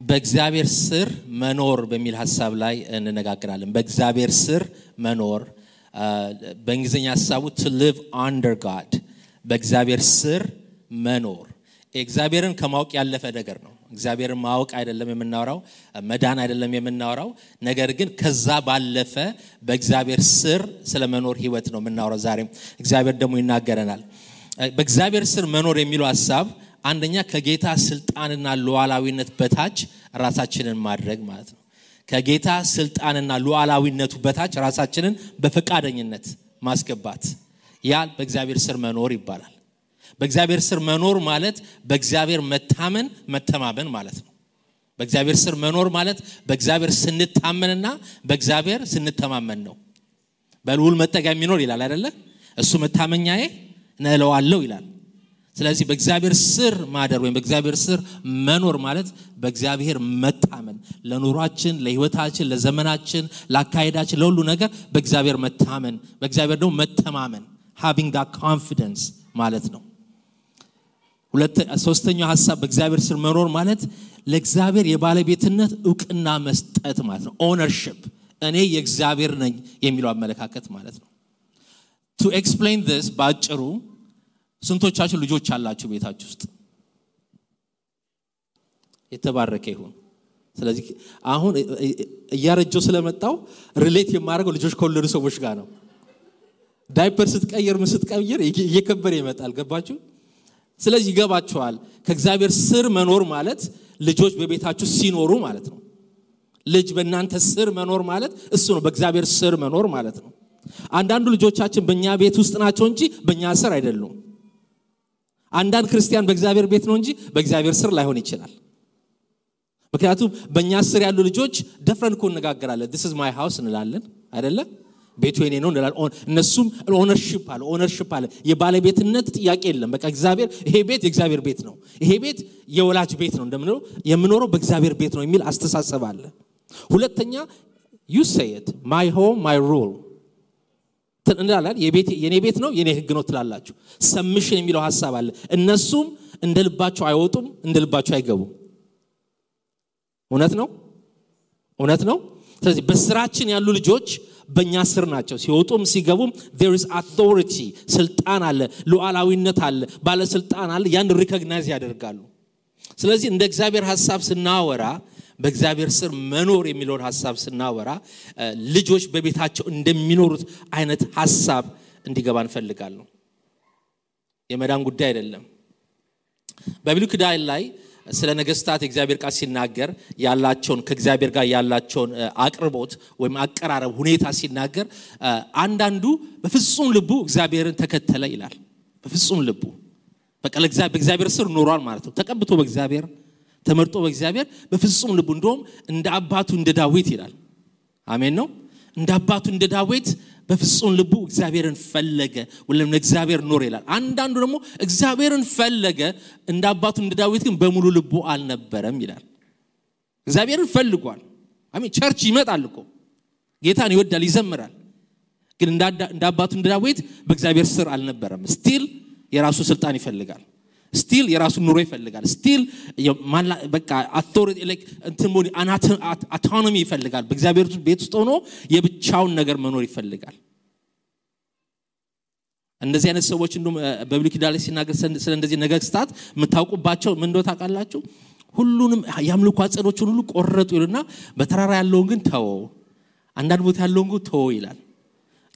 በእግዚአብሔር ስር መኖር በሚል ሐሳብ ላይ እንነጋገራለን። በእግዚአብሔር ስር መኖር በእንግሊዝኛ ሐሳቡ to live under God በእግዚአብሔር ስር መኖር እግዚአብሔርን ከማወቅ ያለፈ ነገር ነው። እግዚአብሔርን ማወቅ አይደለም የምናወራው፣ መዳን አይደለም የምናወራው፣ ነገር ግን ከዛ ባለፈ በእግዚአብሔር ስር ስለመኖር ህይወት ነው የምናወራው። ዛሬም እግዚአብሔር ደግሞ ይናገረናል። በእግዚአብሔር ስር መኖር የሚለው ሐሳብ አንደኛ ከጌታ ስልጣንና ሉዓላዊነት በታች ራሳችንን ማድረግ ማለት ነው። ከጌታ ስልጣንና ሉዓላዊነቱ በታች ራሳችንን በፈቃደኝነት ማስገባት ያ በእግዚአብሔር ስር መኖር ይባላል። በእግዚአብሔር ስር መኖር ማለት በእግዚአብሔር መተማመን ማለት ነው። በእግዚአብሔር ስር መኖር ማለት በእግዚአብሔር ስንታመንና በእግዚአብሔር ስንተማመን ነው። በልዑል መጠጊያ የሚኖር ይላል አይደለ? እሱ መታመኛዬ ነለዋለሁ ይላል። ስለዚህ በእግዚአብሔር ስር ማደር ወይም በእግዚአብሔር ስር መኖር ማለት በእግዚአብሔር መታመን፣ ለኑሯችን፣ ለህይወታችን፣ ለዘመናችን፣ ለአካሄዳችን፣ ለሁሉ ነገር በእግዚአብሔር መታመን፣ በእግዚአብሔር ደግሞ መተማመን having that confidence ማለት ነው። ሶስተኛው ሐሳብ በእግዚአብሔር ስር መኖር ማለት ለእግዚአብሔር የባለቤትነት ዕውቅና መስጠት ማለት ነው። ownership እኔ የእግዚአብሔር ነኝ የሚለው አመለካከት ማለት ነው። to explain this ባጭሩ ስንቶቻችሁ ልጆች አላችሁ ቤታችሁ ውስጥ? የተባረከ ይሁን። ስለዚህ አሁን እያረጀው ስለመጣው ሪሌት የማደርገው ልጆች ከወለዱ ሰዎች ጋር ነው። ዳይፐር ስትቀየር እየከበረ ይመጣል። ገባችሁ? ስለዚህ ይገባችኋል። ከእግዚአብሔር ስር መኖር ማለት ልጆች በቤታችሁ ሲኖሩ ማለት ነው። ልጅ በእናንተ ስር መኖር ማለት እሱ ነው። በእግዚአብሔር ስር መኖር ማለት ነው። አንዳንዱ ልጆቻችን በእኛ ቤት ውስጥ ናቸው እንጂ በእኛ ስር አይደሉም። አንዳንድ ክርስቲያን በእግዚአብሔር ቤት ነው እንጂ በእግዚአብሔር ስር ላይሆን ይችላል። ምክንያቱም በእኛ ስር ያሉ ልጆች ደፍረን እኮ እንነጋገራለን። this is my house እንላለን አይደለ? ቤቱ የኔ ነው እንላለን። እነሱም ኦነርሺፕ አለ። የባለቤትነት ጥያቄ የለም። በቃ እግዚአብሔር ይሄ ቤት የእግዚአብሔር ቤት ነው፣ ይሄ ቤት የወላጅ ቤት ነው እንደምንለው የምኖረው በእግዚአብሔር ቤት ነው የሚል አስተሳሰብ አለ። ሁለተኛ you say it my home my rule እንላለን። የኔ ቤት ነው የኔ ህግ ነው ትላላችሁ። ሰምሽን የሚለው ሐሳብ አለ። እነሱም እንደልባቸው አይወጡም፣ እንደልባቸው አይገቡም። እውነት ነው። ስለዚህ በስራችን ያሉ ልጆች በእኛ ስር ናቸው። ሲወጡም ሲገቡም there is authority ስልጣን አለ፣ ሉዓላዊነት አለ፣ ባለስልጣን አለ። ያን ሪኮግናይዝ ያደርጋሉ። ስለዚህ እንደ እግዚአብሔር ሐሳብ ስናወራ በእግዚአብሔር ስር መኖር የሚለውን ሐሳብ ስናወራ ልጆች በቤታቸው እንደሚኖሩት አይነት ሐሳብ እንዲገባ እንፈልጋለን። የመዳን ጉዳይ አይደለም። በብሉይ ኪዳን ላይ ስለ ነገስታት እግዚአብሔር ቃል ሲናገር ያላቸውን ከእግዚአብሔር ጋር ያላቸውን አቅርቦት ወይም አቀራረብ ሁኔታ ሲናገር አንዳንዱ በፍጹም ልቡ እግዚአብሔርን ተከተለ ይላል። በፍጹም ልቡ በቃ በእግዚአብሔር ስር ኖሯል ማለት ነው። ተቀብቶ በእግዚአብሔር ተመርጦ በእግዚአብሔር በፍጹም ልቡ እንደውም እንደ አባቱ እንደ ዳዊት ይላል። አሜን ነው። እንደ አባቱ እንደ ዳዊት በፍጹም ልቡ እግዚአብሔርን ፈለገ ወለም ለእግዚአብሔር ኖር ይላል። አንዳንዱ ደግሞ እግዚአብሔርን ፈለገ እንደ አባቱ እንደ ዳዊት ግን በሙሉ ልቡ አልነበረም ይላል። እግዚአብሔርን ፈልጓል። አሜን። ቸርች ይመጣል እኮ ጌታን ይወዳል ይዘምራል። ግን እንደ አባቱ እንደ ዳዊት በእግዚአብሔር ስር አልነበረም። ስቲል የራሱ ስልጣን ይፈልጋል። ስቲል የራሱ ኑሮ ይፈልጋል። ስቲል በቃ አውቶሪቲ ላይክ እንትሞኒ አውቶኖሚ ይፈልጋል። በእግዚአብሔር ቤት ውስጥ ሆኖ የብቻውን ነገር መኖር ይፈልጋል። እንደዚህ አይነት ሰዎች እንደውም በብሉይ ኪዳን ላይ ሲናገር ስለ እንደዚህ ነገስታት የምታውቁባቸው ምን እንደው ታውቃላችሁ? ሁሉንም ያምልኩ አጸዶችን ሁሉ ቆረጡ ይሉና በተራራ ያለውን ግን ተወው፣ አንዳንድ ቦታ ያለውን ግን ተወው ይላል።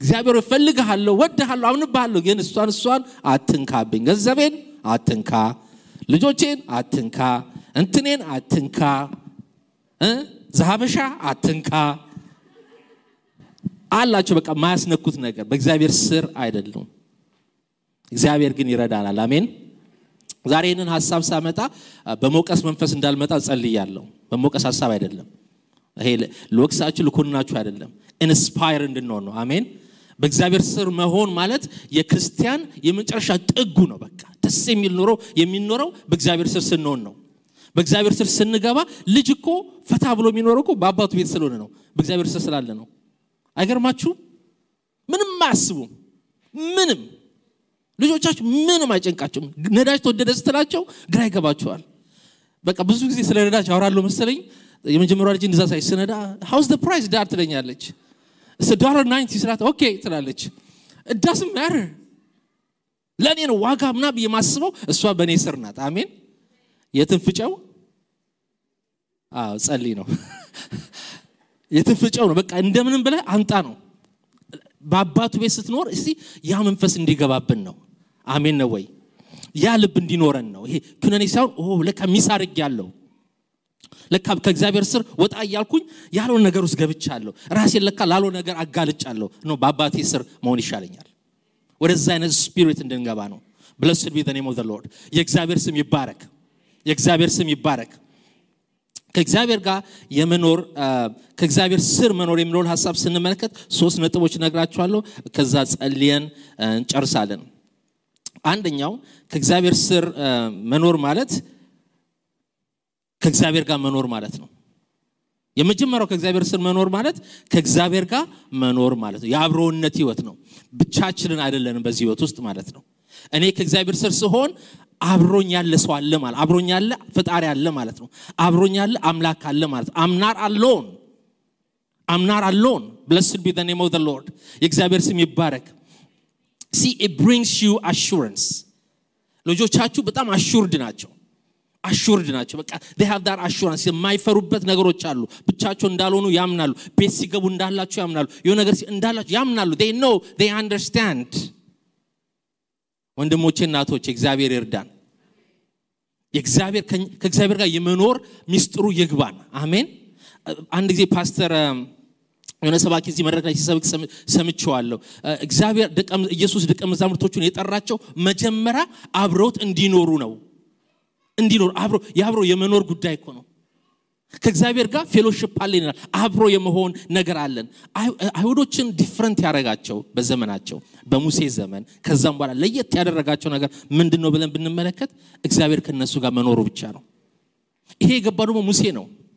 እግዚአብሔር ይፈልግሃለሁ፣ ወድሃለሁ፣ አምንብሃለሁ፣ ግን እሷን አትንካብኝ፣ ገንዘቤን አትንካ፣ ልጆቼን አትንካ፣ እንትኔን አትንካ፣ ዘሃበሻ አትንካ አላቸው። በቃ ማያስነኩት ነገር በእግዚአብሔር ስር አይደለም። እግዚአብሔር ግን ይረዳናል። አሜን። ዛሬ ይህንን ሐሳብ ሳመጣ በመውቀስ መንፈስ እንዳልመጣ ጸልያለሁ። በመውቀስ ሐሳብ አይደለም። ይሄ ለወቅሳችሁ ልኮናችሁ አይደለም። ኢንስፓየር እንድንሆን ነው። አሜን። በእግዚአብሔር ስር መሆን ማለት የክርስቲያን የመጨረሻ ጥጉ ነው። በቃ ደስ የሚል ኑሮ የሚኖረው በእግዚአብሔር ስር ስንሆን ነው። በእግዚአብሔር ስር ስንገባ ልጅ እኮ ፈታ ብሎ የሚኖረው እኮ በአባቱ ቤት ስለሆነ ነው፣ በእግዚአብሔር ስር ስላለ ነው። አይገርማችሁ? ምንም አያስቡም። ምንም ልጆቻችሁ ምንም አይጨንቃቸውም። ነዳጅ ተወደደ ስትላቸው ግራ ይገባቸዋል። በቃ ብዙ ጊዜ ስለ ነዳጅ አወራለሁ መሰለኝ የመጀመሪያው ልጅ እንደዛ ሳይስነዳ how's the price ዳር ትለኛለች it's $1.90 ስላት ኦኬ ትላለች it doesn't matter ለኔ ነው ዋጋ ምናብ የማስበው እሷ በኔ ስር ናት አሜን የትንፍጨው ጸልይ ነው የትንፍጨው ነው በቃ እንደምንም ብለ አንጣ ነው በአባቱ ቤት ስትኖር እስቲ ያ መንፈስ እንዲገባብን ነው አሜን ነው ወይ ያ ልብ እንዲኖረን ነው ይሄ ኩነኔ ሳይሆን ለካ ሚሳርግ ያለው ለካ ከእግዚአብሔር ስር ወጣ ያልኩኝ ያለው ነገር ውስጥ ገብቻለሁ ራሴን ለካ ላለው ነገር አጋልጫለሁ ነው በአባቴ ስር መሆን ይሻለኛል ወደዛ አይነት ስፒሪት እንድንገባ ነው blessed be the name of the lord የእግዚአብሔር ስም ይባረክ የእግዚአብሔር ስም ይባረክ ከእግዚአብሔር ጋር የመኖር ከእግዚአብሔር ስር መኖር የሚለውን ሐሳብ ስንመለከት ሶስት ነጥቦች ነግራችኋለሁ ከዛ ጸልየን እንጨርሳለን አንደኛው ከእግዚአብሔር ስር መኖር ማለት ከእግዚአብሔር ጋር መኖር ማለት ነው የመጀመሪያው ከእግዚአብሔር ስር መኖር ማለት ከእግዚአብሔር ጋር መኖር ማለት ነው የአብሮነት ህይወት ነው ብቻችንን አይደለንም በዚህ ህይወት ውስጥ ማለት ነው እኔ ከእግዚአብሔር ስር ስሆን አብሮኝ ያለ ሰው አለ ማለት አብሮኝ ያለ ፈጣሪ አለ ማለት ነው አብሮኝ ያለ አምላክ አለ ማለት I'm not alone blessed be the name of the lord የእግዚአብሔር ስም ይባረክ see it brings you assurance ልጆቻችሁ በጣም assured ናቸው በቃ they have that assurance የማይፈሩበት ነገሮች አሉ ብቻቸው እንዳልሆኑ ያምናሉ ቤት ሲገቡ እንዳላችሁ ያምናሉ የሆነ ነገር እንዳላችሁ ያምናሉ they know they understand ወንድሞቼ እናቶቼ እግዚአብሔር ይርዳን የእግዚአብሔር ከእግዚአብሔር ጋር የመኖር ሚስጥሩ ይግባን አሜን አንድ ጊዜ ፓስተር የሆነ ሰባኪ እዚህ መድረክ ላይ ሲሰብክ ሰምቼዋለሁ እግዚአብሔር ኢየሱስ ደቀ መዛሙርቶቹን የጠራቸው መጀመሪያ አብሮት እንዲኖሩ ነው አብሮ የመኖር ጉዳይ እኮ ነው ከእግዚአብሔር ጋር ፌሎሺፕ አለን አብሮ የመሆን ነገር አለን አይሁዶችን ዲፈረንት ያረጋቸው በዘመናቸው በሙሴ ዘመን ከዛም በኋላ ለየት ያደረጋቸው ነገር ምንድነው ብለን ብንመለከት እግዚአብሔር ከነሱ ጋር መኖሩ ብቻ ነው ይሄ የገባው ደግሞ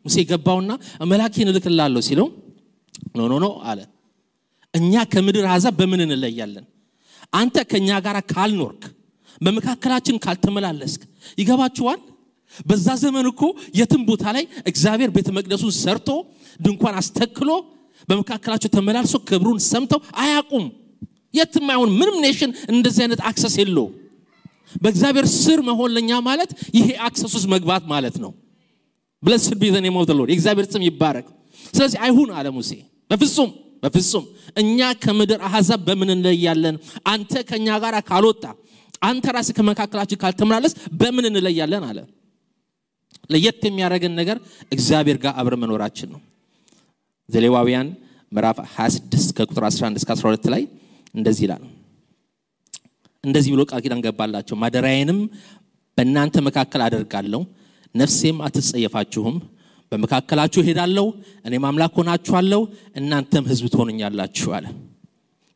ሙሴ ገባውና መላእክን ልክላለሁ ሲለው ኖ አለ እኛ ከምድር አሕዛብ በምን እንለያለን አንተ ከኛ ጋር ካልኖርክ በመካከላችን ካልተመላለስክ ይገባችኋል በዛ ዘመን እኮ የትም ቦታ ላይ እግዚአብሔር ቤተ መቅደሱን ሰርቶ ድንኳን አስተክሎ በመካከላቸው ተመላልሶ ክብሩን ሰምተው አያቁም የትም አይሆን ምንም ኔሽን እንደዚህ አይነት አክሰስ የለው በእግዚአብሔር ስር መሆን ለኛ ማለት ይሄ አክሰስ ውስጥ መግባት ማለት ነው blessed be the name of the lord እግዚአብሔር ስም ይባረክ ስለዚህ አይሁን አለ ሙሴ በፍጹም እኛ ከምድር አሕዛብ በምን እንለያለን አንተ ከኛ ጋር ካልወጣ አንተ ራስህ ከመካከላችን ካልተመላለስ በምን እንለያለን አለ ለየት የሚያረጋን ነገር እግዚአብሔር ጋር አብረ መኖራችን ነው ዘሌዋውያን ምዕራፍ 26 ከቁጥር 11 እስከ 12 ላይ እንደዚህ ይላል እንደዚህ ብሎ ቃል ኪዳን ገባላቸው ማደሪያዬንም በእናንተ መካከል አደርጋለሁ ነፍሴም አትጸየፋችሁም በመካከላችሁ ሄዳለሁ እኔም አምላክ ሆናችኋለሁ እናንተም ሕዝብ ትሆኑኛላችሁ አለ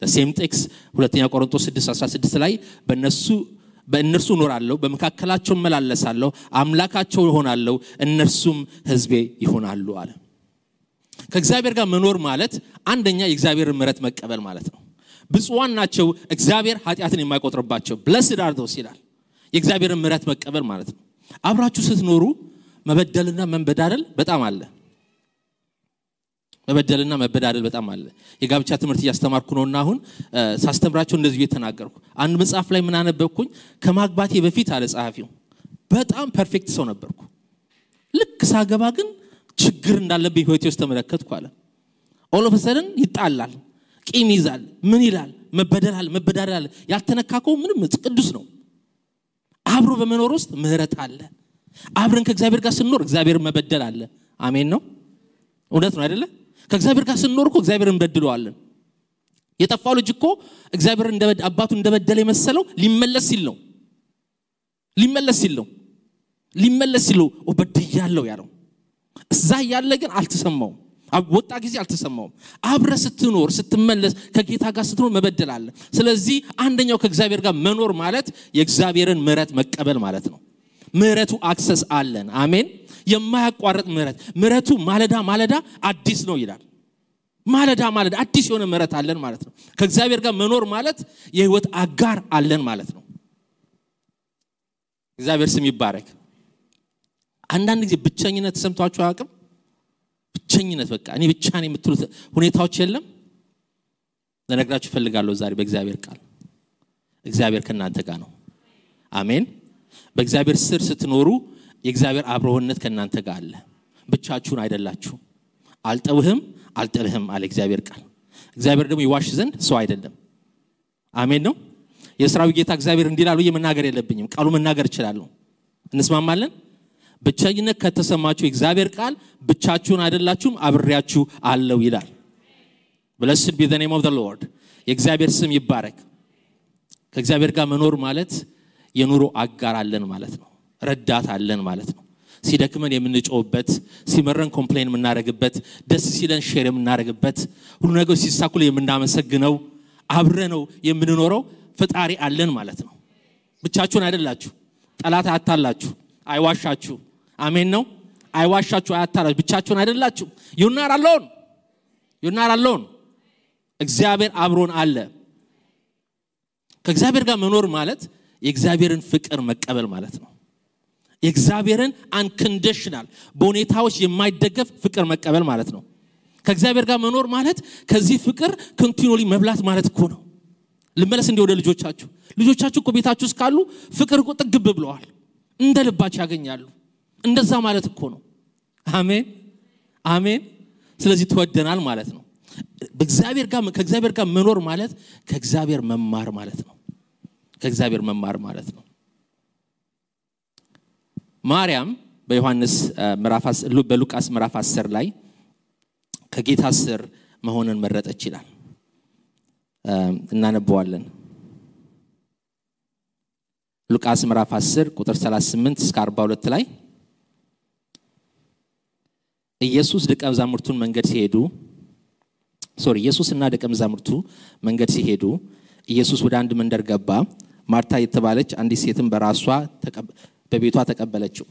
the same text ሁለተኛ ቆሮንቶስ 6:16 ላይ በእነርሱ ኖራለሁ በመካከላቸው መላለሳለሁ አምላካቸው ይሆናለሁ እነርሱም ሕዝቤ ይሆናሉ አለ ከእግዚአብሔር ጋር መኖር ማለት አንደኛ የእግዚአብሔርን ምሕረት መቀበል ማለት ነው ብፁዓን ናቸው እግዚአብሔር ኃጢአትን የማይቆጥርባቸው blessed are those ይላል የእግዚአብሔርን ምሕረት መቀበል ማለት ነው አብራችሁ ስትኖሩ መበደልና መንበዳደል በጣም አለ በጣም አለ የጋብቻ ትምህርት ያስተማርኩ ነውና አሁን ሳስተምራቸው እንደዚህ እየተናገርኩ አንድ መጽሐፍ ላይ ምን አነበብኩኝ ከማግባቴ በፊት አለ ጸሐፊው በጣም ፐርፌክት ሰው ነበርኩ ልክ ሳገባ ግን ችግር እንዳለብኝ ህይወቴ ውስጥ ተመለከትኩ አለ all of a sudden ይጣላል ቂም ይዛል ምን ይላል መበዳደል ያልተነካከው ምንም ቅዱስ ነው አብሮ በመኖር ውስጥ ምህረት አለ አብረን ከእግዚአብሔር ጋር ስንኖር እግዚአብሔር መበደል አለ አሜን ነው እውነት ነው አይደለ ከእግዚአብሔር ጋር ስንኖር እኮ እግዚአብሔርን በድለዋለን የጠፋው ልጅ እኮ እግዚአብሔር አባቱ እንደበደለ የመሰለው ሊመለስ ሲል ወበድያለሁ ያለው እዛ ያለ ግን አልተሰማውም ወጣ ጊዜ አልተሰማውም አብረ ስትኖር ስትመለስ ከጌታ ጋር ስትኖር መበደል አለ ስለዚህ አንደኛው ከእግዚአብሔር ጋር መኖር ማለት የእግዚአብሔርን ምሕረት መቀበል ማለት ነው ምሕረቱ አክሰስ አለን አሜን የማያቋርጥ ምሕረቱ ማለዳ አዲስ ነው ይላል ማለዳ አዲስ የሆነ ምሕረት አለን ማለት ነው ከእግዚአብሔር ጋር መኖር ማለት የህይወት አጋር አለን ማለት ነው እግዚአብሔር ስም ይባረክ አንዳንድ ጊዜ ብቸኝነት ተሰምቷችሁ አያውቅም? ብቸኝነት በቃ እኔ ብቻ ነኝ የምትሉት ሁኔታዎች የለም? ለነግራችሁ ፈልጋለሁ ዛሬ በእግዚአብሔር ቃል እግዚአብሔር ከናንተ ጋር ነው። አሜን። በእግዚአብሔር ስር ስትኖሩ የእግዚአብሔር አብሮነት ከናንተ ጋር አለ። ብቻችሁን አይደላችሁ። አልተውህም አልጥልህም አለ እግዚአብሔር ቃል። እግዚአብሔር ደግሞ ይዋሽ ዘንድ ሰው አይደለም። አሜን ነው። የሥራው ጌታ እግዚአብሔር እንዲላሉ የመናገር የለብኝም፣ ቃሉ መናገር እችላለሁ። እንስማማለን? ብቸኝነት ከተሰማችሁ እግዚአብሔር ቃል ብቻችሁን አይደላችሁም አብሬያችሁ አለው ይላል። Blessed be the name of the Lord. የእግዚአብሔር ስም ይባረክ። ከእግዚአብሔር ጋር መኖር ማለት የኑሮ አጋር አለን ማለት ነው። ረዳት አለን ማለት ነው። ሲደክመን የምንጮህበት፣ ሲመረን ኮምፕሌን የምናደርግበት፣ ደስ ሲለን ሼር የምናደርግበት፣ ሁሉ ነገር ሲሳኩል የምናመሰግነው አብረነው የምንኖረው ፈጣሪ አለን ማለት ነው። ብቻችሁን አይደላችሁ። ጠላት አታላችሁ፣ አይዋሻችሁ። አሜን ነው። አይዋሻችሁ፣ አያታላችሁ። ብቻችሁን አይደላችሁ። you're not alone. you're not alone. እግዚአብሔር አብሮን አለ። ከእግዚአብሔር ጋር መኖር ማለት የእግዚአብሔርን ፍቅር መቀበል ማለት ነው። የእግዚአብሔርን unconditional በሁኔታዎች የማይደገፍ ፍቅር መቀበል ማለት ነው። ከእግዚአብሔር ጋር መኖር ማለት ከዚህ ፍቅር continually መብላት ማለት እኮ ነው። ልመለስ እንደ ወደ ልጆቻችሁ እኮ ቤታችሁ ውስጥ ካሉ ፍቅር እኮ ጥግብ ብለዋል፣ እንደ ልባቸው ያገኛሉ። እንደዛ ማለት እኮ ነው። አሜን አሜን። ስለዚህ ተወደናል ማለት ነው። ከእግዚአብሔር ጋር መኖር ማለት ከእግዚአብሔር መማር ማለት ነው። ከእግዚአብሔር መማር ማለት ነው። ማርያም በሉቃስ ምዕራፍ 10 ላይ ከጌታ ስር መሆንን መረጠች ይላል። እናነበዋለን። ሉቃስ ምዕራፍ 10 ቁጥር 38 እስከ 42 ላይ ኢየሱስና ደቀ መዛሙርቱ መንገድ ሲሄዱ ኢየሱስ ወደ አንድ መንደር ገባ። ማርታ የተባለች አንዲት ሴትም በቤቷ ተቀበለችው።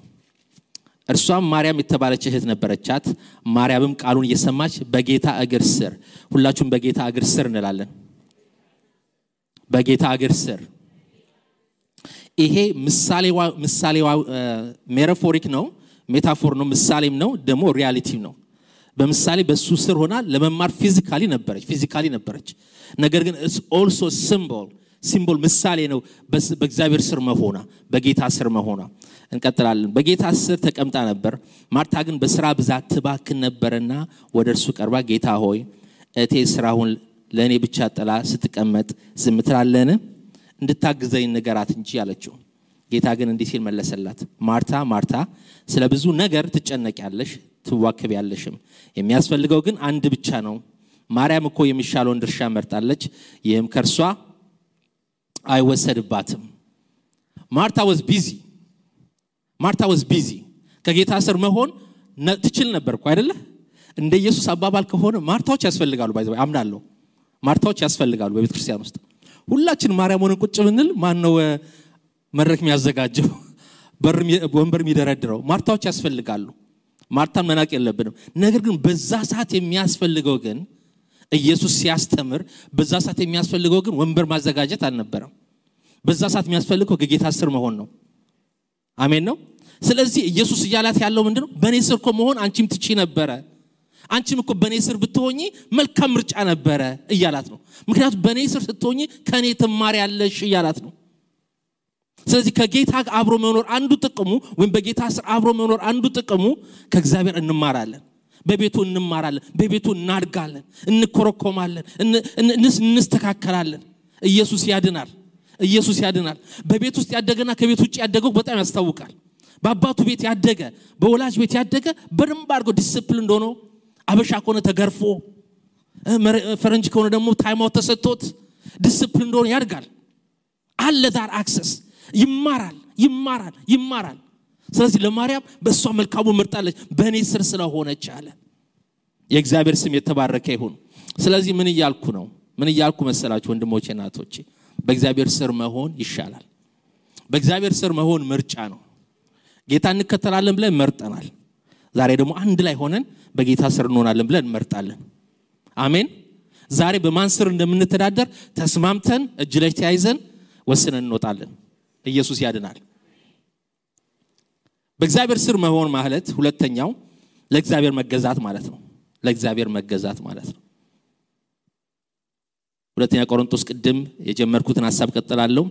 እርሷም ማርያም የተባለች እህት ነበረቻት። ማርያምም ቃሉን እየሰማች በጌታ እግር ስር፣ ሁላችሁም በጌታ እግር ስር እንላለን። በጌታ እግር ስር። ይሄ ምሳሌዋ ሜታፎሪክ ነው፣ ሜታፎር ነው፣ ምሳሌም ነው፣ ደግሞ ሪያሊቲ ነው። በምሳሌ በሱ ስር ሆና ለመማር ፊዚካሊ ነበረች። ነገር ግን it's also ሲምቦል ምሳሌ ነው በእግዚአብሔር ስር መሆኗ፣ በጌታ ስር መሆኗ። እንቀጥላለን። በጌታ ስር ተቀምጣ ነበር። ማርታ ግን በስራ ብዛት ትባክን ነበርና ወደ እርሱ ቀርባ ጌታ ሆይ እቴ ስራውን ለኔ ብቻ ጥላ ስትቀመጥ ዝም ትላለህን? እንድታግዘኝ ንገራት እንጂ አለችው። ጌታ ግን እንዲህ ሲል መለሰላት፣ ማርታ ማርታ ስለ ብዙ ነገር ትጨነቂያለሽ ትዋከቢያለሽም፣ የሚያስፈልገው ግን አንድ ብቻ ነው። ማርያም እኮ የሚሻለውን ድርሻ መርጣለች፣ ይህም ከርሷ አይወሰድባትም። ማርታ was busy ከጌታ ስር መሆን ትችል ነበር እኮ አይደለ? እንደ ኢየሱስ አባባል ከሆነ ማርታዎች ያስፈልጋሉ። ባይዘው አምናለሁ፣ ማርታዎች ያስፈልጋሉ በቤተ ክርስቲያን ውስጥ። ሁላችን ማርያም ሆነን ቁጭ ብንል ማን ነው መድረክ የሚያዘጋጀው ወንበር የሚደረድረው? ማርታዎች ያስፈልጋሉ። ማርታን መናቅ የለብንም። ነገር ግን በዛ ሰዓት የሚያስፈልገው ግን ኢየሱስ ሲያስተምር በዛ ሰዓት የሚያስፈልገው ግን ወንበር ማዘጋጀት አልነበረም። በዛ ሰዓት የሚያስፈልገው ከጌታ ስር መሆን ነው። አሜን ነው። ስለዚህ ኢየሱስ ይያላት ያለው ምንድነው? በኔ ስር እኮ መሆን አንቺም ትቺ ነበረ፣ አንቺም እኮ በኔ ስር ብትሆኚ መልካም ምርጫ ነበረ እያላት ነው። ምክንያቱም በኔ ስር ስትሆኚ ከኔ ትማሪያለሽ እያላት ነው። ስለዚህ ከጌታ አብሮ መኖር አንዱ ጥቅሙ ወይም በጌታ ስር አብሮ መኖር አንዱ ጥቅሙ ከእግዚአብሔር እንማራለን፣ በቤቱ እንማራለን፣ በቤቱ እናድጋለን፣ እንኮረኮማለን፣ እንስተካከላለን። ኢየሱስ ያድናል። በቤት ውስጥ ያደገና ከቤት ውጭ ያደገው በጣም ያስታውቃል። በአባቱ ቤት ያደገ በወላጅ ቤት ያደገ በደንብ አድርጎ ዲሲፕሊን ሆኖ አበሻ ከሆነ ተገርፎ ፈረንጅ ከሆነ ደግሞ ታይም አውት ተሰጥቶት ዲሲፕሊን ሆኖ ያድጋል። አለ ዳር አክሰስ ይማራል። ስለዚህ ለማርያም በእሷ መልካሙ መርጣለች በእኔ ስር ስለሆነች አለ። የእግዚአብሔር ስም የተባረከ ይሁን። ስለዚህ ምን እያልኩ መሰላችሁ ወንድሞቼ እናቶቼ? በእግዚአብሔር ስር መሆን ይሻላል። በእግዚአብሔር ስር መሆን ምርጫ ነው። ጌታ እንከተላለን ብለን መርጠናል። ዛሬ ደግሞ አንድ ላይ ሆነን በጌታ ስር እንሆናለን ብለን መርጣለን። አሜን። ዛሬ በማን ስር እንደምንተዳደር ተስማምተን እጅ ላይ ተያይዘን ወስነን እንወጣለን። ኢየሱስ ያድናል። በእግዚአብሔር ስር መሆን ማለት ሁለተኛው ለእግዚአብሔር መገዛት ማለት ነው። ለእግዚአብሔር መገዛት ማለት ነው። ሁለተኛ ቆሮንቶስ ቅድም የጀመርኩትን ሐሳብ ቀጥላለሁ።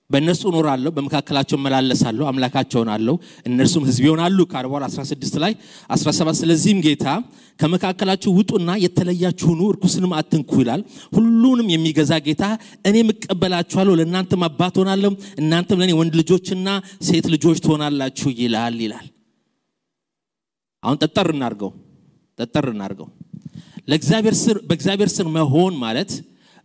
በእነሱ እኖራለሁ፣ በመካከላቸው መላለሳለሁ፣ አምላካቸው ሆናለሁ፣ እነርሱም ሕዝብ ይሆናሉ ከ40 16 ላይ 17 ስለዚህም ጌታ ከመካከላችሁ ውጡና የተለያችሁ ሁኑ፣ ርኩስንም አትንኩ ይላል። ሁሉንም የሚገዛ ጌታ እኔም እቀበላችኋለሁ፣ ለእናንተም አባት ሆናለሁ፣ እናንተም ለኔ ወንድ ልጆችና ሴት ልጆች ትሆናላችሁ ይላል። አሁን ጠጠር እናርገው። በእግዚአብሔር ስር መሆን ማለት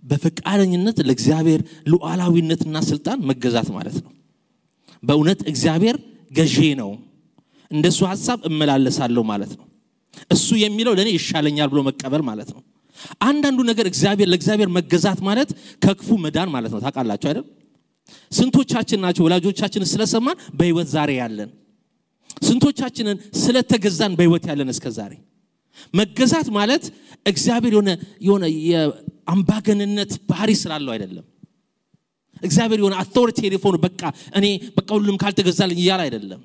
በፈቃደኝነት ለእግዚአብሔር ሉዓላዊነትና ስልጣን መገዛት ማለት ነው። በእውነት እግዚአብሔር ገዢ ነው፣ እንደሱ ሐሳብ እመላለሳለሁ ማለት ነው። እሱ የሚለው ለኔ ይሻለኛል ብሎ መቀበል ማለት ነው። አንዳንዱ ነገር ለእግዚአብሔር መገዛት ማለት ከክፉ መዳን ማለት ነው። ታውቃላችሁ አይደል? ስንቶቻችን ናቸው ወላጆቻችንን ስለሰማን በህይወት ዛሬ ያለን? ስንቶቻችንን ስለተገዛን በህይወት ያለን እስከዛሬ? መገዛት ማለት እግዚአብሔር የሆነ የአምባገነንነት ባህሪ ስላለው አይደለም። እግዚአብሔር የሆነ አውቶሪቴቲቭ ሆኖ በቃ ሁሉም ካልተገዛልኝ ይያል አይደለም።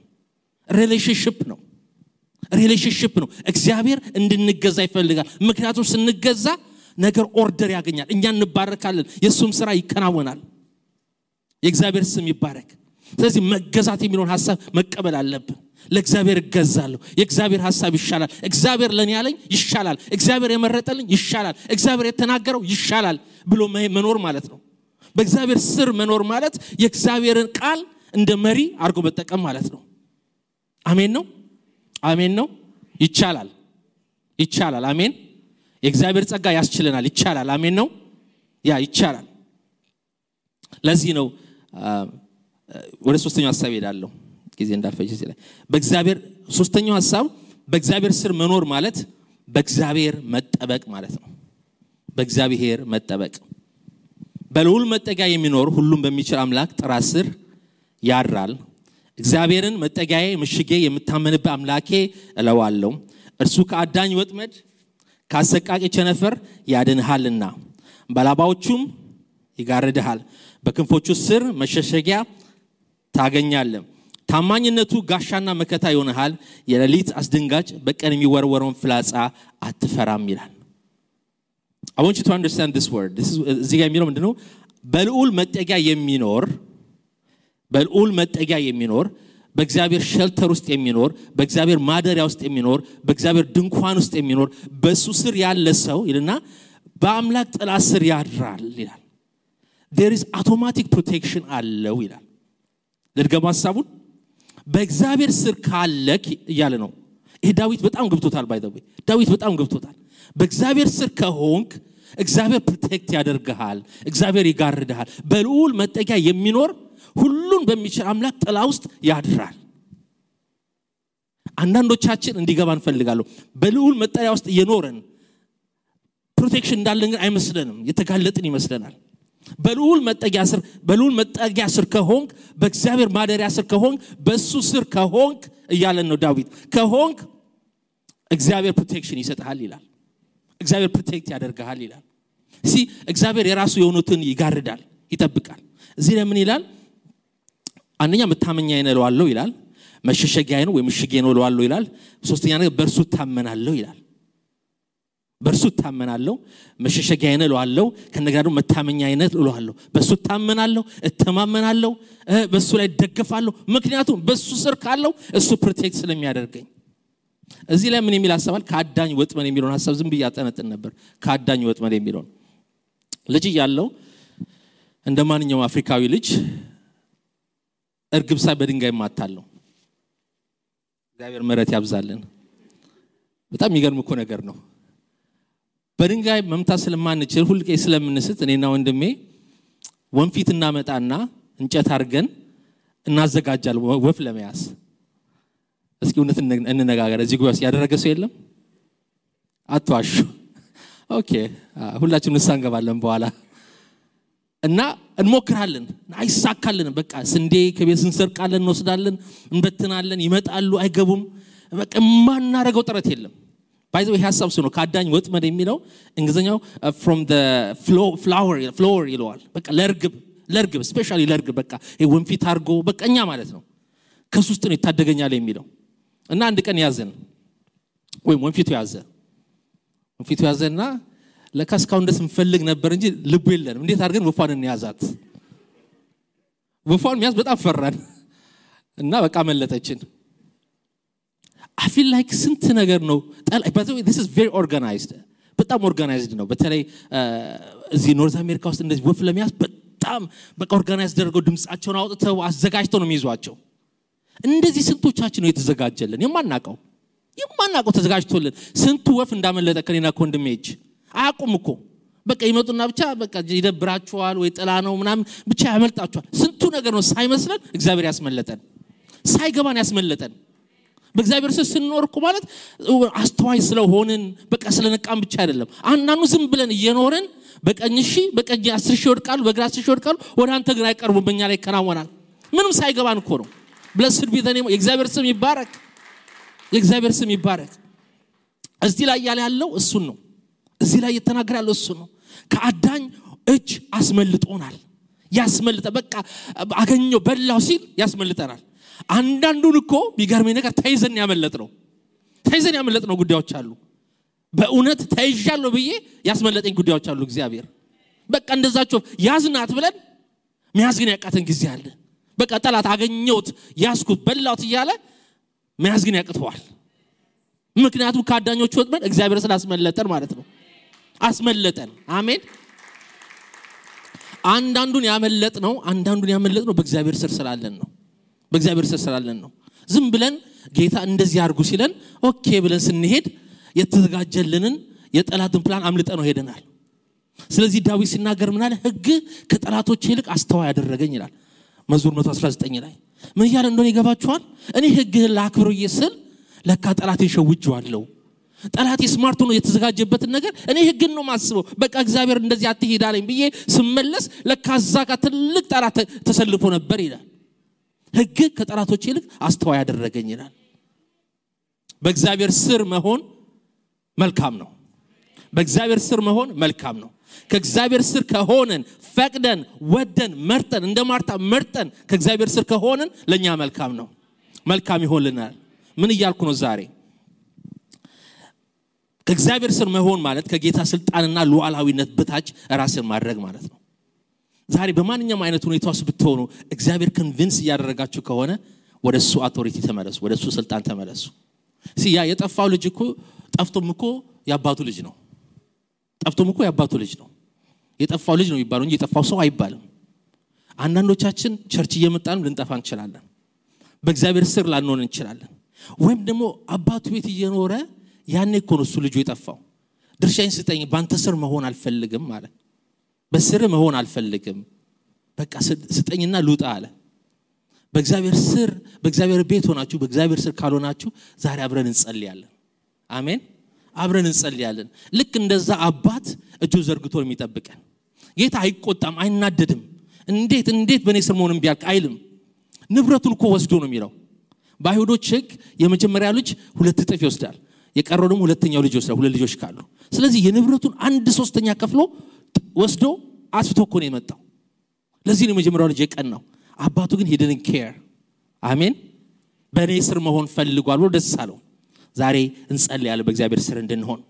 ሪሌሽንሺፕ ነው። እግዚአብሔር እንድንገዛ ይፈልጋል። ምክንያቱም ስንገዛ ነገር ኦርደር ያገኛል፣ እኛ እንባረካለን፣ የሱም ስራ ይከናወናል። የእግዚአብሔር ስም ይባረክ። ስለዚህ መገዛት የሚለውን ሐሳብ መቀበል አለብን። ለእግዚአብሔር እገዛለሁ፣ የእግዚአብሔር ሐሳብ ይሻላል፣ እግዚአብሔር ለኔ ያለኝ ይሻላል፣ እግዚአብሔር የመረጠልኝ ይሻላል፣ እግዚአብሔር የተናገረው ይሻላል ብሎ መኖር ማለት ነው። በእግዚአብሔር ስር መኖር ማለት የእግዚአብሔርን ቃል እንደ መሪ አድርጎ መጠቀም ማለት ነው። አሜን ነው። ይቻላል። አሜን። የእግዚአብሔር ጸጋ ያስችለናል። ይቻላል። አሜን ነው። ይቻላል። ለዚህ ነው ወደ ሶስተኛው ሐሳብ ሄዳለሁ፣ ጊዜ እንዳልፈጅ ሲለኝ በእግዚአብሔር ሶስተኛው ሐሳብ በእግዚአብሔር ስር መኖር ማለት በእግዚአብሔር መጠበቅ ማለት ነው። በእግዚአብሔር መጠበቅ በልዑል መጠጊያ የሚኖር ሁሉም በሚችል አምላክ ጥራ ስር ያድራል። እግዚአብሔርን መጠጊያዬ ምሽጌ የምታመንበት አምላኬ እለዋለሁ። እርሱ ከአዳኝ ወጥመድ ካሰቃቂ ቸነፈር ያድንሃልና በላባዎቹም ይጋርድሃል። በክንፎቹ ስር መሸሸጊያ ታገኛለህ። ታማኝነቱ ጋሻና መከታ ይሆንሃል። የሌሊት አስደንጋጭ በቀን የሚወረወረውን ፍላጻ አትፈራም ይላል። I want you to understand this word. እዚህ ጋር የሚለው ምንድነው? በልዑል መጠጊያ የሚኖር በእግዚአብሔር ሼልተር ውስጥ የሚኖር በእግዚአብሔር ማደሪያ ውስጥ የሚኖር በእግዚአብሔር ድንኳን ውስጥ የሚኖር በሱ ስር ያለ ሰው ይልና በአምላክ ጥላ ስር ያድራል ይላል። there is automatic protection አለው ይላል። ለድገማ ሐሳቡን በእግዚአብሔር ስር ካለክ እያለ ነው። ይሄ ዳዊት በጣም ገብቶታል። ዳዊት በጣም ገብቶታል። በእግዚአብሔር ስር ከሆንክ እግዚአብሔር ፕሮቴክት ያደርግሃል፣ እግዚአብሔር ይጋርድሃል። በልዑል መጠጊያ የሚኖር ሁሉን በሚችል አምላክ ጥላ ውስጥ ያድራል። አንዳንዶቻችን እንዲገባን ፈልጋለሁ። በልዑል መጠጊያ ውስጥ የኖረን ፕሮቴክሽን እንዳለን ግን አይመስለንም፣ የተጋለጥን ይመስለናል። በልዑል መጠጊያ ስር ከሆንክ በእግዚአብሔር ማደሪያ ስር ከሆንክ በሱ ስር ከሆንክ እያለን ነው ዳዊት። ከሆንክ እግዚአብሔር ፕሮቴክሽን ይሰጣል ይላል። እግዚአብሔር ፕሮቴክት ያደርጋል ይላል። እግዚአብሔር የራሱ የሆኑትን ይጋርዳል፣ ይጠብቃል። እዚህ ላይ ምን ይላል? አንደኛ መታመኛዬ ነው እለዋለሁ ይላል። መሸሸጊያዬ ነው ወይ ምሽጌ ነው እለዋለሁ ይላል። ሶስተኛ ነገር በእርሱ እታመናለሁ ይላል። በእርሱ እታመናለሁ፣ መሸሸጊያዬ ነው እለዋለሁ፣ ከነገር ደግሞ መታመኛዬ ነው እለዋለሁ። በእሱ እታመናለሁ፣ እተማመናለሁ፣ በእሱ ላይ ደግፋለሁ። ምክንያቱም በእሱ ስር ካለው እሱ ፕሮቴክት ስለሚያደርገኝ። እዚህ ላይ ምን የሚል ሐሳብ አለ? ከአዳኝ ወጥመድ የሚለውን ሐሳብ ዝም ብዬ አጠነጥን ነበር። ከአዳኝ ወጥመድ የሚለውን ልጅ ያለው እንደማንኛውም አፍሪካዊ ልጅ እርግብ ሳይ በድንጋይ ማታለው። እግዚአብሔር ምሕረት ያብዛልን። በጣም የሚገርም እኮ ነገር ነው። በድንጋይ መምታት ስለማንችል ሁልቄ ስለምንስት እኔና ወንድሜ ወንፊት እናመጣና እንጨት አድርገን እናዘጋጃለን ወፍ ለመያዝ። እስኪ እውነት እንነጋገር። እዚህ ጉባኤ ያደረገ ሰው የለም? አትዋሹ። ኦኬ፣ ሁላችንም ንስሐ እንገባለን በኋላ እና እንሞክራለን። አይሳካልን። በቃ ስንዴ ከቤት እንሰርቃለን፣ እንወስዳለን፣ እንበትናለን፣ ይመጣሉ፣ አይገቡም። በቃ ማናረገው ጥረት የለም። ባይ ዘ ወይ ሐሳብ ነው ከአዳኝ ወጥመድ የሚለው እንግሊዘኛው from the flower ይለዋል። በቃ ለርግብ ስፔሻሊ ለርግብ በቃ ወንፊት አርጎ በቃኛ ማለት ነው። ከሱስት ነው ይታደገኛል የሚለው እና አንድ ቀን ያዘን ወይ ወንፊቱ ያዘና ለካስካውን ደስ እንፈልግ ነበር እንጂ ልቡ የለንም እንዴት አድርገን ወፋን እንያዛት ወፋን ያዝ በጣም ፈራን እና በቃ መለጠችን I feel like ስንት ነገር ነው but this is very organized በጣም organized ነው በተለይ እዚህ ኖርዝ አሜሪካ ውስጥ እንደዚህ ወፍ ለሚያዝ በጣም በቃ organized አድርገው ድምጻቸውን አውጥተው አዘጋጅተው ነው የሚይዟቸው እንደዚህ ስንቶቻችን ነው የተዘጋጀልን የማናቀው ተዘጋጅቶልን ስንቱ ወፍ እንዳመለጠ ከኔና ኮንድሜጅ አያቁም እኮ በቃ ይመጡና ብቻ በቃ ይደብራቸዋል ወይ ጥላ ነው ምናምን ብቻ ያመልጣቸዋል ስንቱ ነገር ነው ሳይመስለን እግዚአብሔር ያስመለጠን ሳይገባን ያስመለጠን በእግዚአብሔር ስንኖር እኮ ማለት አስተዋይ ስለሆንን በቃ ስለነቃም ብቻ አይደለም አንናኑ ዝም ብለን እየኖርን በቀኝ 10 ሺህ ወድቃሉ በግራ 10 ሺህ ወድቃሉ ወደ አንተ ግን አይቀርቡም በእኛ ላይ ከናወናል ምንም ሳይገባን እኮ ነው blessed be the name የእግዚአብሔር ስም ይባረክ የእግዚአብሔር ስም ይባረክ እዚህ ላይ ያለው እሱን ነው እዚህ ላይ የተናገረ ያለው እሱ ነው ከአዳኝ እጅ አስመልጦናል ያስመልጠ በቃ አገኘው በላው ሲል ያስመልጠናል አንዳንዱን እኮ ቢገርመኝ ነገር ተይዘን ያመለጥነው ጉዳዮች አሉ በእውነት ተይዣለሁ ብዬ ያስመለጠኝ ጉዳዮች አሉ እግዚአብሔር በቃ እንደዛቸው ያዝናት ብለን መያዝ ግን ያቃተን ጊዜ አለ በቃ ጠላት አገኘውት ያስኩት በላውት እያለ መያዝ ግን ያቅተዋል ምክንያቱም ካዳኞቹ ወጥመድ እግዚአብሔር ስላስመለጠን ማለት ነው አስመለጠን አሜን አንዳንዱን ያመለጥነው በእግዚአብሔር ስር ስላለን ነው ዝም ብለን ጌታ እንደዚህ አድርጉ ሲለን ኦኬ ብለን ስንሄድ የተዘጋጀልንን የጠላትን ፕላን አምልጠን ነው ሄደናል ስለዚህ ዳዊት ሲናገር ምን አለ ሕግ ከጠላቶቼ ይልቅ አስተዋይ ያደረገኝ ይላል መዝሙር 119 ላይ ምን ይላል እንደሆነ ይገባችኋል እኔ ሕግህን ላክብር ይስል ለካ ጠላቴን ሸውጄዋለሁ ጠላቴ ስማርት ነው የተዘጋጀበትን ነገር እኔ ሕግን ነው ማስበው በቃ እግዚአብሔር እንደዚህ አትሄዳለኝ ብዬ ስመለስ ለካ ዛጋ ትልቅ ጠላት ተሰልፎ ነበር ይላል ሕግ ከጠላቶቼ ይልቅ አስተዋይ ያደረገኝ ይላል በእግዚአብሔር ስር መሆን መልካም ነው ከእግዚአብሔር ስር ከሆነን ፈቅደን ወደን መርጠን እንደ ማርታ መርጠን ከእግዚአብሔር ስር ከሆነን ለኛ መልካም ይሆንልናል ምን ይያልኩ ነው ዛሬ ከእግዚአብሔር ስር መሆን ማለት ከጌታ ስልጣንና ሉዓላዊነት በታች ራስን ማድረግ ማለት ነው ዛሬ በማንኛውም አይነት ሁኔታ ውስጥ ብትሆኑ እግዚአብሔር ኮንቪንስ ያደረጋችሁ ከሆነ ወደሱ አውቶሪቲ ተመለሱ ወደሱ ስልጣን ተመለሱ ሲያ የጠፋው ልጅ እኮ ጠፍቶም እኮ ያባቱ ልጅ ነው የጠፋው ልጅ ነው ይባላል እንጂ የጠፋው ሰው አይባልም አንዳንዶቻችን ቸርች እየመጣን ልንጠፋ እንችላለን በእግዚአብሔር ስር ላንሆን እንችላለን ወይም ደግሞ አባቱ ቤት እየኖረ ያኔ እኮ ነው እሱ ልጅ የጠፋው ድርሻዬን ስጠኝ ባንተ ስር መሆን አልፈልግም ማለት በስር መሆን አልፈልግም በቃ ስጠኝና ልውጣ አለ በእግዚአብሔር ቤት ሆናችሁ በእግዚአብሔር ስር ካልሆናችሁ ዛሬ አብረን እንጸልያለን አሜን አብረን እንጸልያለን ልክ እንደዛ አባት እጁ ዘርግቶ የሚጠብቀን ጌታ አይቆጣም አይናደድም እንዴት በኔ ስር መሆንም ቢያልቅ አይልም ንብረቱን እኮ ወስዶ ነው የሚለው በአይሁዶች ሕግ የመጀመሪያ ልጅ 2 እጥፍ ይወስዳል የቀረው ደግሞ ሁለተኛው ልጅ ይወስዳል 2 ልጆች ካሉ ስለዚህ የንብረቱን 1/3 ከፍሎ ወስዶ አስፍቶ እኮ ነው የመጣው ለዚህ ነው የመጀመሪያው ልጅ የቀናው አባቱ ግን he didn't care አሜን በኔ ስር መሆን ፈልጓል ብሎ ደስ አለው ዛሬ እንጸልያለን በእግዚአብሔር ስር እንድንሆን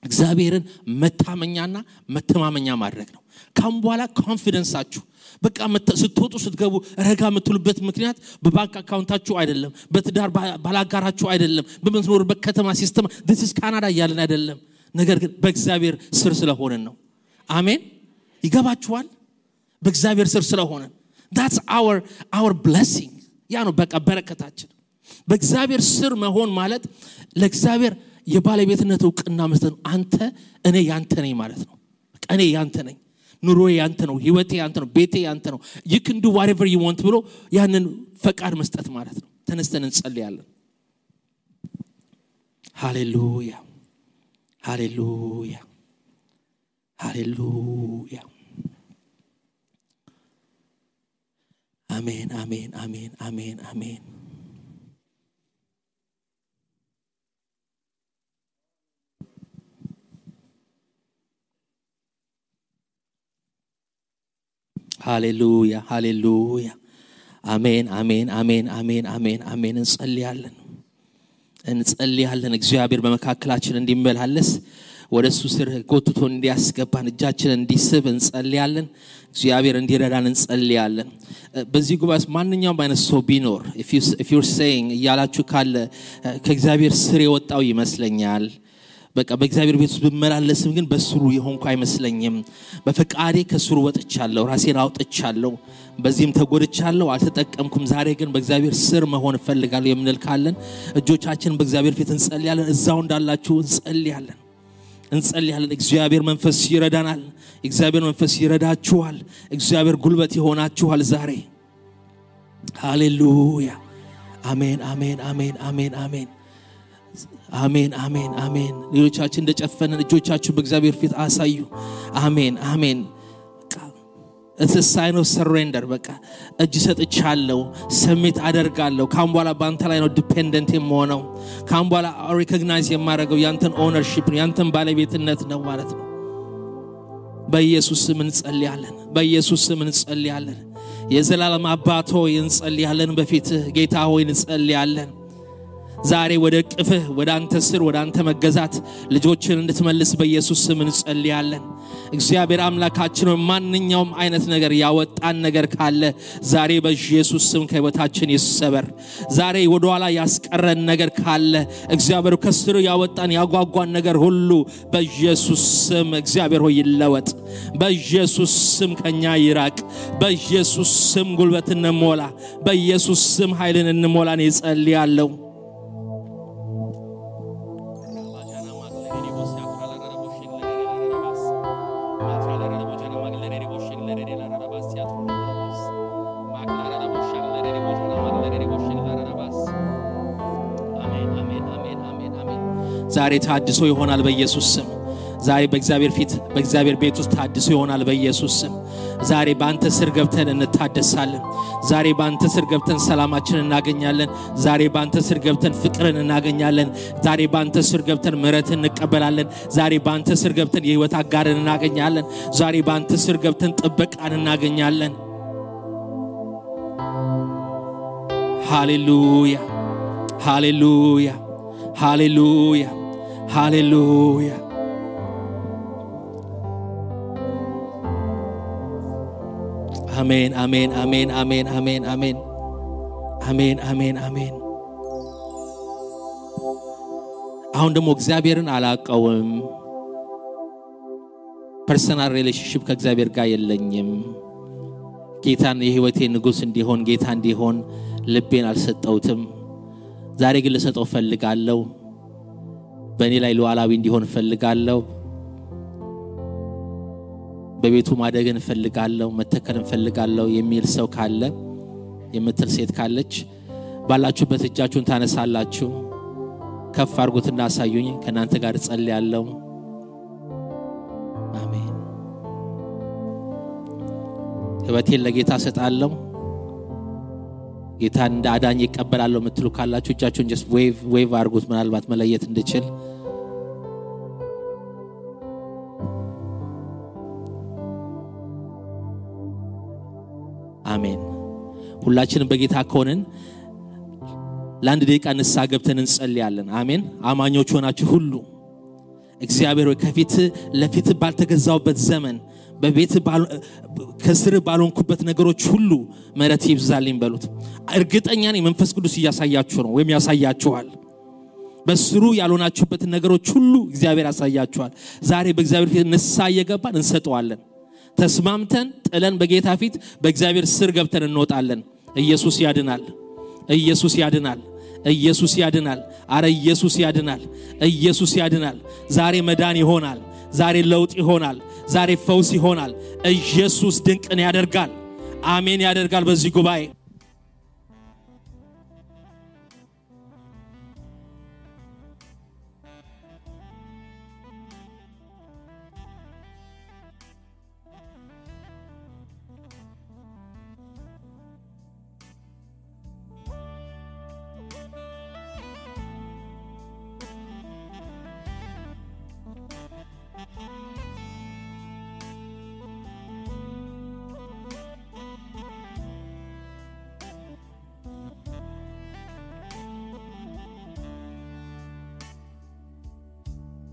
እግዚአብሔርን መታመኛና መተማመኛ ማድረግ ነው ካም በኋላ ኮንፊደንሳችሁ በቃ ስትወጡ ስትገቡ ረጋ የምትሉበት ምክንያት በባንክ አካውንታችሁ አይደለም በትዳር ባላጋራችሁ አይደለም በመኖርበት ከተማ ሲስተም this is Canada ያለን አይደለም ነገር ግን በእግዚአብሔር ስር ስለሆነን ነው አሜን ይገባችኋል በእግዚአብሔር ስር ስለሆነን that's our blessing ያ ነው በቃ በረከታችን በእግዚአብሔር ስር መሆን ማለት ለእግዚአብሔር የባለቤትነት ዕውቅና መስጠት አንተ እኔ ያንተ ነኝ ማለት ነው እኔ ያንተ ነኝ ኑሮዬ ያንተ ነው ህይወቴ ያንተ ነው ቤቴ ያንተ ነው you can do whatever you want ብሎ ያንን ፈቃድ መስጠት ማለት ነው ተነስተን እንጸልያለን ሃሌሉያ አሜን ሃሌሉያ አሜን አሜን አሜን አሜን አሜን አሜን እንጸልያለን እግዚአብሔር በመካከላችን እንዲመላለስ ወደሱ ስር ጎትቶ እንዲያስገባን እጃችንን እንዲስብ እንጸልያለን እግዚአብሔር እንዲረዳን እንጸልያለን በዚህ ጉባኤ ማንኛውም አይነት ሰው ቢኖር if you're saying ያላችሁ ካለ ከእግዚአብሔር ስር የወጣው ይመስለኛል በቃ በእግዚአብሔር ቤት ውስጥ በመላለስም ግን በስሩ የሆንኩ አይመስለኝም በፈቃዴ ከስሩ ወጥቻለሁ ራሴን አውጥቻለሁ በዚህም ተጎድቻለሁ አልተጠቀምኩም ዛሬ ግን በእግዚአብሔር ስር መሆን ፈልጋለሁ የምንል ካለን እጆቻችንን በእግዚአብሔር ፊት እንጸልያለን እዛው እንዳላችሁ እንጸልያለን እግዚአብሔር መንፈስ ይረዳናል እግዚአብሔር መንፈስ ይረዳችኋል እግዚአብሔር ጉልበት ይሆናችኋል ዛሬ ሃሌሉያ አሜን አሜን አሜን አሜን አሜን አሜን አሜን አሜን ሌሎቻችን እንደጨፈነን እጆቻችሁ በእግዚአብሔር ፊት አሳዩ አሜን አሜን It's a sign of surrender በቃ እጅ ሰጥቻለሁ ሰሚት አደርጋለሁ ካምቧላ ባንተ ላይ ነው ዲፔንደንት የምሆነው ካምቧላ ሪኮግናይዝ የማደርገው ያንተን ኦነርሺፕ ነው ያንተን ባለቤትነት ነው ማለት ነው በኢየሱስ ስም እንጸልያለን የዘላለም አባት ሆይ እንጸልያለን በፊትህ ጌታ ሆይ እንጸልያለን ዛሬ ወደ ቅፍህ ወደ አንተ ስር ወደ አንተ መገዛት ልጆችን እንድትመልስ በኢየሱስ ስም እንጸልያለን እግዚአብሔር አምላካችን ማንኛውም አይነት ነገር ያወጣን ነገር ካለ ዛሬ በኢየሱስ ስም ከህይወታችን ይሰበር ዛሬ ወደ ኋላ ያስቀረን ነገር ካለ እግዚአብሔር ከስሩ ያወጣን ያጓጓን ነገር ሁሉ በኢየሱስ ስም እግዚአብሔር ሆይ ይለወጥ በኢየሱስ ስም ከኛ ይራቅ በኢየሱስ ስም ጉልበትን እንሞላ በኢየሱስ ስም ኃይልን እንሞላን ይጸልያለሁ ዛሬ ታድሶ ይሆናል በኢየሱስ ስም ዛሬ በእግዚአብሔር ቤት ውስጥ ታድሶ ይሆናል በኢየሱስ ስም ዛሬ ባንተ ስር ገብተን እንታደሳለን ዛሬ ባንተ ስር ገብተን ሰላማችንን እናገኛለን ዛሬ ባንተ ስር ገብተን ፍቅርን እናገኛለን ዛሬ ባንተ ስር ገብተን ምሕረትን እንቀበላለን ዛሬ ባንተ ስር ገብተን የህይወት አጋርን እናገኛለን ዛሬ ባንተ ስር ገብተን ጥበቃን እናገኛለን ሃሌሉያ ሃሌሉያ ሃሌሉያ Hallelujah. Amen, amen, amen, amen, amen, amen. Amen, amen, amen. አሁን ደግሞ እግዚአብሔርን አላቀውም ፐርሰናል ሪሌሽንሺፕ ከእግዚአብሔር ጋር የለኝም ጌታን የህይወቴ ንጉስ እንዲሆን ጌታ እንዲሆን ልቤን አልሰጠውትም ዛሬ ግን ልሰጠው ፈልጋለሁ በእኔ ላይ ሉዓላዊ እንዲሆን ፈልጋለሁ በቤቱ ማደግን ፈልጋለሁ መተከልን ፈልጋለሁ የሚል ሰው ካለ የምትል ሴት ካለች ባላችሁበት እጃችሁን ታነሳላችሁ ከፍ አድርጉትና አሳዩኝ ከናንተ ጋር ጸልያለሁ አሜን ህይወቴን ለጌታ ሰጣለሁ ጌታ እንደ አዳኝ ይቀበላል የምትሉ ካላችሁ እጃችሁን just wave አድርጉት ምናልባት መለየት እንድችል አሜን ሁላችንም በጌታ ከሆነን ለአንድ ደቂቃ ንስሐ ገብተን እንጸልያለን አሜን አማኞች ሆናችሁ ሁሉ እግዚአብሔር ከፊት ለፊት ባልተገዛውበት ዘመን በቤት ከስር ባልሆንኩበት ነገሮች ሁሉ ምሕረት ይብዛልኝ በሉት እርግጠኛ ነኝ መንፈስ ቅዱስ ያሳያችሁ ነው ወይም ያሳያችኋል በስሩ ያልሆናችሁበት ነገሮች ሁሉ እግዚአብሔር ያሳያችኋል ዛሬ በእግዚአብሔር ፊት ንስሐ እየገባን እንሰጠዋለን ተስማምተን ጥለን በጌታ ፊት በእግዚአብሔር ስር ገብተን እንወጣለን ኢየሱስ ያድናል ኢየሱስ ያድናል ኢየሱስ ያድናል አረ ኢየሱስ ያድናል ኢየሱስ ያድናል ዛሬ መዳን ይሆናል ዛሬ ለውጥ ይሆናል ዛሬ ፈውስ ይሆናል ኢየሱስ ድንቅን ያደርጋል አሜን ያደርጋል በዚህ ጉባኤ